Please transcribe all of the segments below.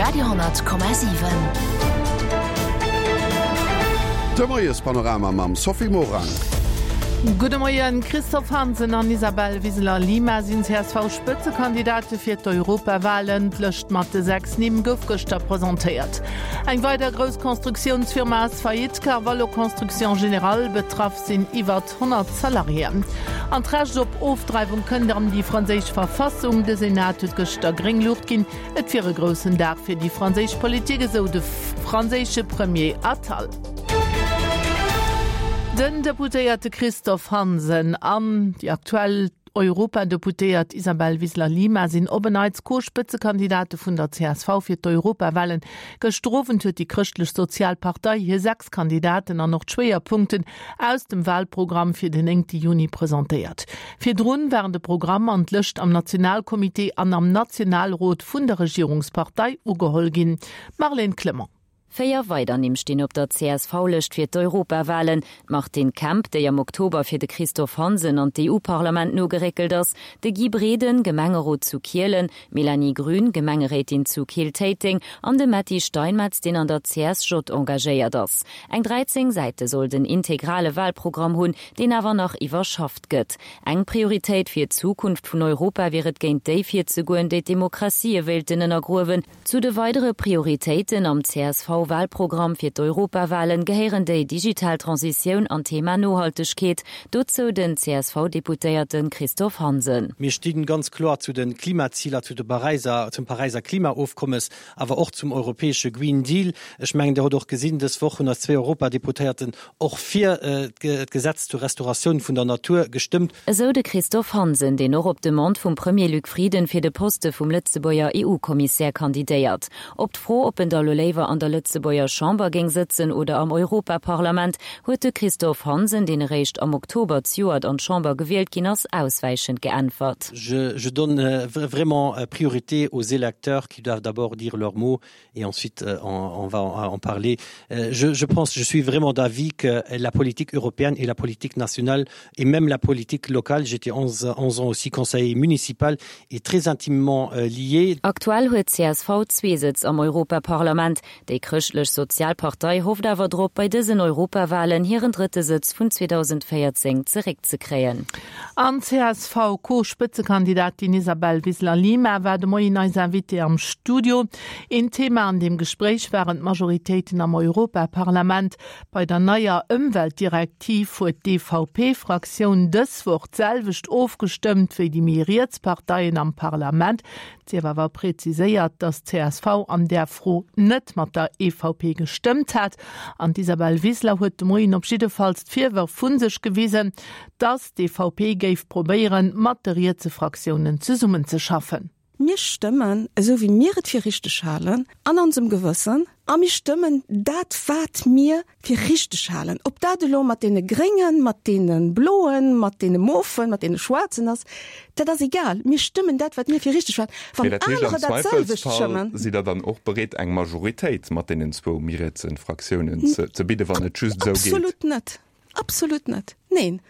Radio 10,7. De Moiespanorama mam Sophie Morang. Gudde Moien. Christophe Hansen an Isabel Wiseler-Lima sinn CSV-Spëtzekandidate fir d'Europawalen. D'Lëscht mat de 6 Nimm gouf gëschter presentéiert. Eng weider grouss Constructiounsfirma ass faillite, Carvalho Construction Générale. Betraff sinn iwwert 100 Salariéen. An d'Recht op Ofdreiwung kënnt an déi franséisch Verfassung. De Senat huet gëschter gréng Luucht ginn. Et wier e groussen Dag fir déi franséisch Politik, esou de franséische Premier Attal. Den Deputéierte Christophe Hansen an déi aktuell Europadeputéiert Isabel Wiseler-Lima sinn op en Neits Co-Spëtzekandidate vun der csv fir d'Europawalen. Gëschter Owend huet déi Chrëschtlech-Sozial Partei hir 6 Kandidaten an och d'Schwéierpunkten aus dem Wahlprogramm fir den 9 Juni presentéiert. Virdrun waren de Programm an d'Lëscht am Nationalcomité an am Nationalrot vun der Regierungspartei ugeholl ginn. Marlène Clement. 4 weider Nimm stinn op der CSV-Lëscht fir d'Europawahlen, d'Martine Kemp, déi am Oktober fir de Christophe Hansen an d'EU-Parlament nogeréckelt ass, de Guy Breden, Gemengerot zu Kielen, d'Mélanie Grün, Gemengeréitin zu Keel-Téiteng, an de Metty Steinmetz, deen an der CSJ engagéiert ass. Eng 13 Säite soll den integrale Wahlprogramm hunn, deen awer nach iwwerschafft gëtt. Eng Prioritéit fir d'Zukunft vun Europa wier et géint déi virzegoen, déi d'Demokratië wéilten ënnergruewen. Zu de weidere Prioritéiten am CSV-Wahlprogramm fir d'Europawahlen gehéieren déi digital Transitioun an d'Thema Nohaltegkeet. Dozou den CSV-Deputéierte Christophe Hansen. Mir sti ganz kloer zu de Klimaziler, zu de Paräiser, zum Paräiser Klimaofkommes, awer och zum europäesche Green Deal. Ech mengen, Dir hutt och gesinn, dës Woch hunn eis zwee Europadeputéierten och fir d'Gesetz zur Restauratioun vun der Natur gestëmmt. Esou de Christophe Hansen, deen och op Demande vum Premier Luc Frieden fir de Poste vum Lëtzebuerger EU-Kommissär kandidéiert. Op d'Fro, ob en da lo léiwer an der Lëtzebuerger Chamber géing sëtzen oder am Europaparlament, huet de Christophe Hansen, deen eréischt am Oktober zejoert an d'Chamber gewielt ginn ass, auswäichend geäntwert. Je donne vraiment priorité aux électeurs qui doivent d'abord dire leur mot et ensuite euh, on, on va en parler. Euh, je, je pense je suis vraiment d'avis que la politique européenne et la politique nationale et même la politique locale, j'étais 11, 11 ans aussi conseiller municipal est très intimement euh, liée. Aktuell huet csv zwee Sëtz am Europaparlament. Déi Chrëschtlech Sozial Partei hofft awer drop, bei dësen Europawalen hiren drëtte Sëtz vun 2014 zeréckzekréien. An d'CSV-Co-Spëtzekandidatin Isabel Wiseler-Lima war de Moien eis Invitée am Studio. Een Thema an deem Gespréich waren d'Majoritéiten am Europaparlament. Bei der neier Ëmweltdirektiv huet d'EVP-Fraktioun dës Woch d'selwecht ofgestëmmt wéi déi méi riets Parteien am Parlament. Et sief awer preziséiert, datt d'CSV an där Fro net mat der EVP gestëmmt hat. An d'Isabel Wiseler huet de Moien op jiddefalls d'Virwërf vu sech gewisen, datt d'EVP géif probéieren, mat de rietse Fraktiounen zesummenzeschaffen. Mir stëmmen esou wéi mir et fir richteg halen an onsem Gewëssen a mir stëmmen dat wat mir fir richteg halen. Ob dat elo mat deene Gréngen, mat deene Bloen, mat deene Mofen, mat deene Schwaarzen ass, dat ass egal. Mir stëmmen dat wat mir fir richteg halen. Mee Wann dat heescht, am anerer dat selwecht Zweifelsfall stëmmen. sidd Der dann och bereet eng Majoritéit mat deenen zwou méi rietse Fraktiounen ze bidden, wann et just esou geet? Absolut net. Absolut net. Neen.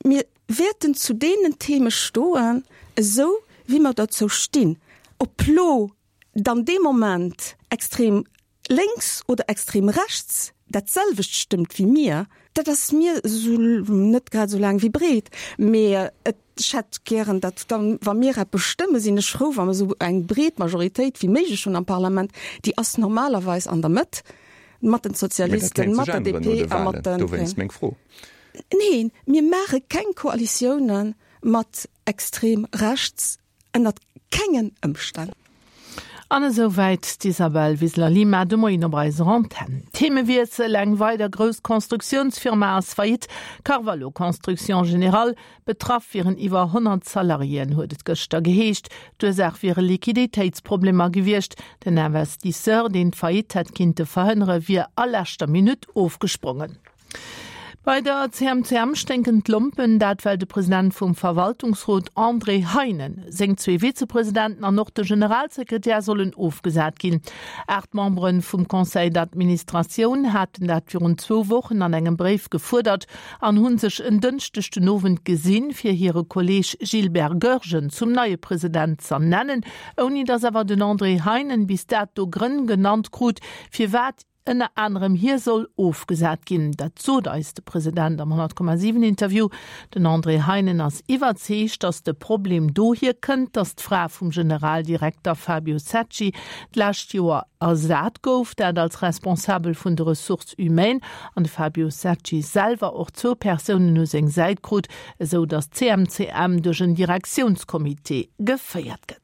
Mir wäerten zu deenen Theme stoen, esou wéi mer derzou stinn. Ob lo dann dee Moment extrem lénks oder extrem rechts dat selwecht stëmmt wéi mir, dat ass mir esou net grad esou laang wéi breet. Mee et, ech hätt gären, datt dann, wa mir eppes stëmmen, sinn ech frou, wa mer esou eng breet Majoritéit wéi méiglech hunn am Parlament. Déi ass normalerweis an der Mëtt, mat den Mee dat Sozialisten, kéint mat sech der änneren no DP de a mat Wahlen. de Dowéinst Gréngen. meng Fro. Neen, mir maache keng Koalitioune mat extrem rechts, ënnert kengen Ëmstänn. An esou wäit d'Isabel Wiseler-Lima de Moien op eiser Antenn. Themewiessel, Eng weider grouss Constructiounsfirma ass faillite, Carvalho Construction Générale. Betraff wieren iwwer 100 Salariéen, huet et gëschter geheescht. D'Ursaach wiere Liquiditéitsproblemer gewiescht. Den Investisseur, deen d'Faillite hätt kinnte verhënnere, wier a leschter Minutt ofgesprongen. Bei der CMCM sténken d'Lompen, dat well de President vum Verwaltungsrot André Heinen, seng zwee Vizepresidenten an och de Generalsekretär sollen ofgesat ginn. 8 Membere vum Conseil d'administratioun haten dat virun zwou Wochen an engem Bréif gefuerdert an hu sech en Dënschdeg den Owend gesinn, fir hire Kolleeg Gilbert Goergen zum neie President z'ernennen, ouni datt awer den André Heinen bis dato Grënn genannt krut, firwat ënner anerem hie soll ofgesat ginn. Dat sot eis de President am 100,7 Interview. Den André Heinen ass iwwerzeegt, datt de Problem dohier kënnt, datt d'Fra vum Generaldirekter Fabio Secci d'lescht Joer ersat gouf, dat als Responsabel vun de Ressources humaines, an de Fabio Secci selwer och zwou Persounen u seng Säit krut, esou datt d'CMCM duerch en Direktiounscomité geféiert gëtt.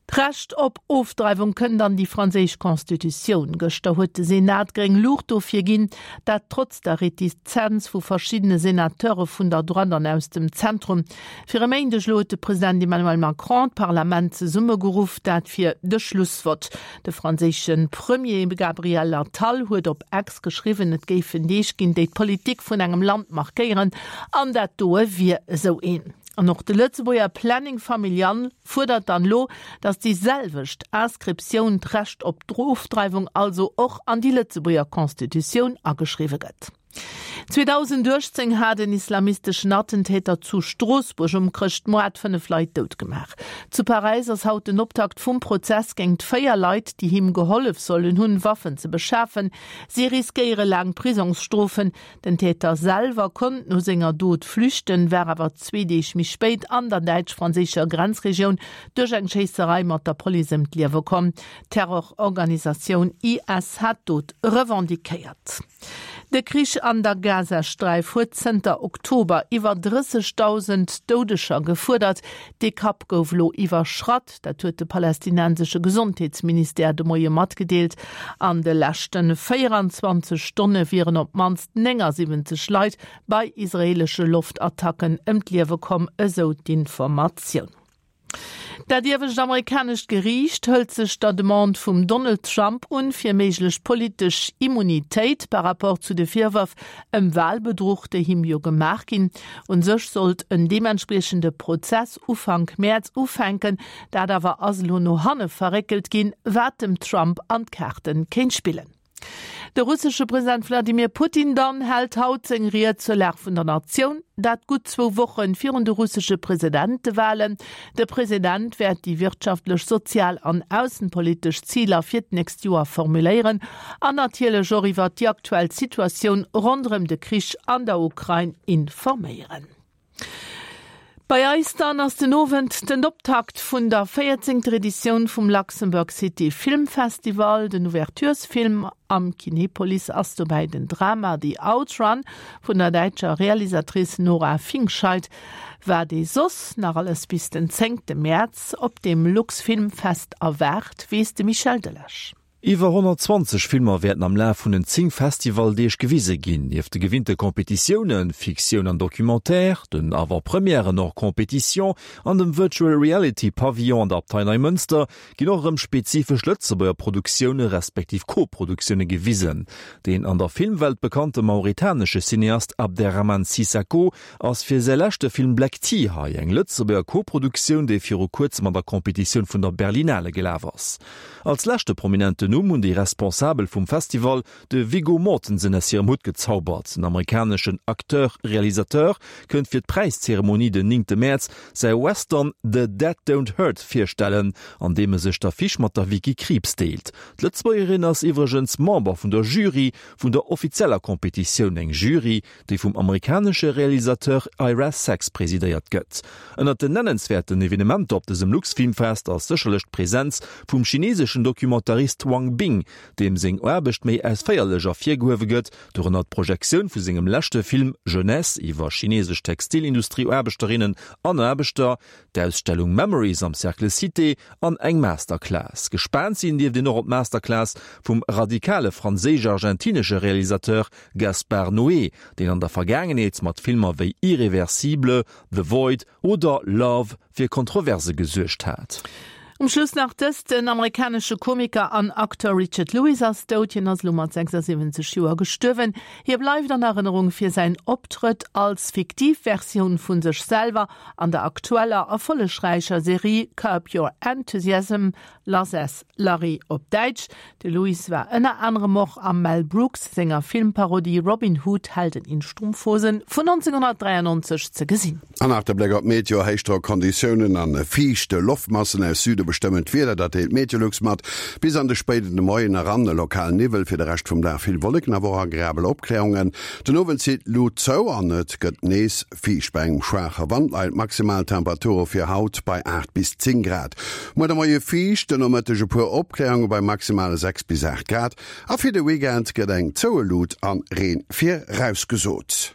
D'Recht op Ofdreiwung kënnt an déi franséisch Constitutioun. Gëschter huet de Senat gréng Luucht dofir ginn, dat trotz der Retizenz vu verschiddene Senateure vun der Droite an aus dem Zentrum. Fir e Méindeg elo huet de President Emmanuel Macron d'Parlament zesummegeruff, dat fir de Schlussvott. De franséische Premier Gabriel Attal huet op X geschriwwen, et géifen Deeg ginn, déi d'Politik vun engem Land markéieren, an dat doe wier esou een. An och de Lëtzebuerger Planning Familial fuerdert dann elo, datt déi selwecht Inscriptioun, d'Recht op d'Ofdreiwung also, och an déi Lëtzebuerger Constitutioun ageschriwwe gëtt. 2018 hat en islamisteschen Attentäter zu Stroossbuerg um Chrëschtmoart 5 Leit dout gemaach. Zu Paräis ass haut den Optakt vum Prozess géingt 4 Leit, déi him gehollef sollen hunn, Waffen ze beschafen. Si riskéiere laang Prisongsstrofen. Den Täter selwer konnt no senger Dot flüchten, war awer zwee Deeg méi spéit an der däitsch-franséischer Grenzregioun duerch eng Schéisserei mat der Police ëm d'Liewe komm. D'Terrororganisatioun IS hat d'Dot revendiquéiert. De Krich an der Gazasträif huet zënter Oktober iwwer 30.000 Doudeger gefuerdert. Dee Kapp gouf elo iwwerschratt. Dat huet de palästinensesche Gesondheetsministère de Moie matgedeelt. An de leschte 24 Stonne wieren op d'mannst 79 Leit bei israeelesche Loftattacken ëm d'Liewe komm, esou d'Informatioun. Dat iewescht amerikanescht Geriicht hëlt sech der Demande vum Donald Trump un, fir méiglech politesch Immunitéit par rapport zu de Virwërf ëm Walbedruch, déi him jo gemaach ginn. Un sech sollt en deementspriechende Prozess Ufank Mäerz ufänken, dat awer ass elo no hanne verréckelt ginn, wat dem Trump an d'Kaarte kéint spillen. De russesche President Wladimir Putin dann hält haut seng Ried zur Lag vun der Natioun, dat gutt zwou Woche virun de russesche Presidentewalen. De President wäert déi wirtschaftlech, sozial an aussenpolitesch Ziler fir d'nächst Joer formuléieren an natierlech och iwwert déi aktuell Situatioun ronderëm de Krich an der Ukrain informéieren. Bei eis dann ass den Owend den Optakt vun der 14. Editioun vum Luxembourg City Film Festival. Den Ouverturesfilm am Kinepolis ass dobäi den Drama The Outrun vun der däitscher Realisatrice Nora Fingscheidt. Wat ee soss nach alles bis den zéngte Mäerz op dem Luxfilmfest erwaart, weess de Michel Delage. Iwwer 120 Filmer wäerten am Laf vun den 10 Festivaldeeg gewise ginn. Nieft de gewinnte Competitiounen, Fiktioun an Documentaire, den Avant-Premièren hors compétition an dem Virtual Reality Pavillon an der Abtei Neimënster ginn och erëm spezifesch Lëtzebuerger Produktioune respektiv Co-Produktioune gewisen. Deen an der Filmwelt bekannte mauritanesche Cineast Abderrahmane Sissako ass fir säi leschte Film Black Tea hei, eng Lëtzebuerger Co-Produktioun, déi viru kuerzem an der Competitioun vun der Berlinale gelaf ass. Als leschte prominenten Numm hunn déi Responsabel vum Festival de Viggo Mortensen aus hirem Hutt gezaubert. Den amerikaneschen Acteur-Realisateur kënnt fir d'Präiszeremonie den néngte Mäerz säi Western The Dead Don't Hurt virstellen, an deem e sech d'Affiche mat der Vicky Krieps deelt. D'Lëtzebuergerin ass iwwregens Member vun der Jury vun der offizieller Competitioun, eng Jury, déi vum amerikanesche Realisateur Ira Sachs presidéiert gëtt. Ënnert den nennenswäerten Evenementer op dësem Luxfilmfest ass sécherlech d'Presenz vum chineseschen Documentarist Wang Bing, deem seng Aarbecht méi ausféierlech ervirgehuewe gëtt, dorënner d'Projektioun vu sengem leschte Film Jeunesse iwwer chinesesch Textilindustrieaarbechterinnen an Aarbechter, d'Ausstellung Memories am Cercle Cité an eng Masterclass. Gespaant sinn dierft een och op d'Masterclass vum radikale franséisch-argentinesche Realisateur Gaspar Noé, deen an der Vergaangenheet mat Filmer wéi Irréversible, The Void oder Love fir Kontroverse gesuergt hat. Um Schluss nach dëst, Den amerikanesche Komiker an Acteur Richard Lewis ass dout. Hien ass elo mat 76 Joer gestuerwen. Hie bleift an Erënnerung fir säin Optrëtt als fiktiv Versioun vu sech selwer an der aktueller erfollegräicher Serie Curb Your Enthusiasm, Lass es Larry op Däitsch. De Lewis war ënner anerem och am Mel Brooks senger Filmparodie Robin Hood, Helden in Strumpfhosen vun 1993 ze gesinn. An nach de Bléck op d'Meteo, Héichdrock-Konditiounen an fiicht Loftmassen aus Süde bestëmmen d'Wieder, dat deelt Meteolux mat. Bis an de spéiden Moien eran e lokalen Niwwel, fir de Rescht vum Dag vill Wolleken, awer och agreabel Opkläerungen. Den Owend zitt d'Lut zou an et gëtt nees fiicht. Bei engem schwaache Wand leien d'Maximaltemperature fir haut bei 8 bis 10 Grad. Muer de Moie fiicht, den Nomëtteg e puer Opkläerunge bei maximale 6 bis 8 Grad a fir de Weekend gëtt eng zoue Lut an Reen virausgesot.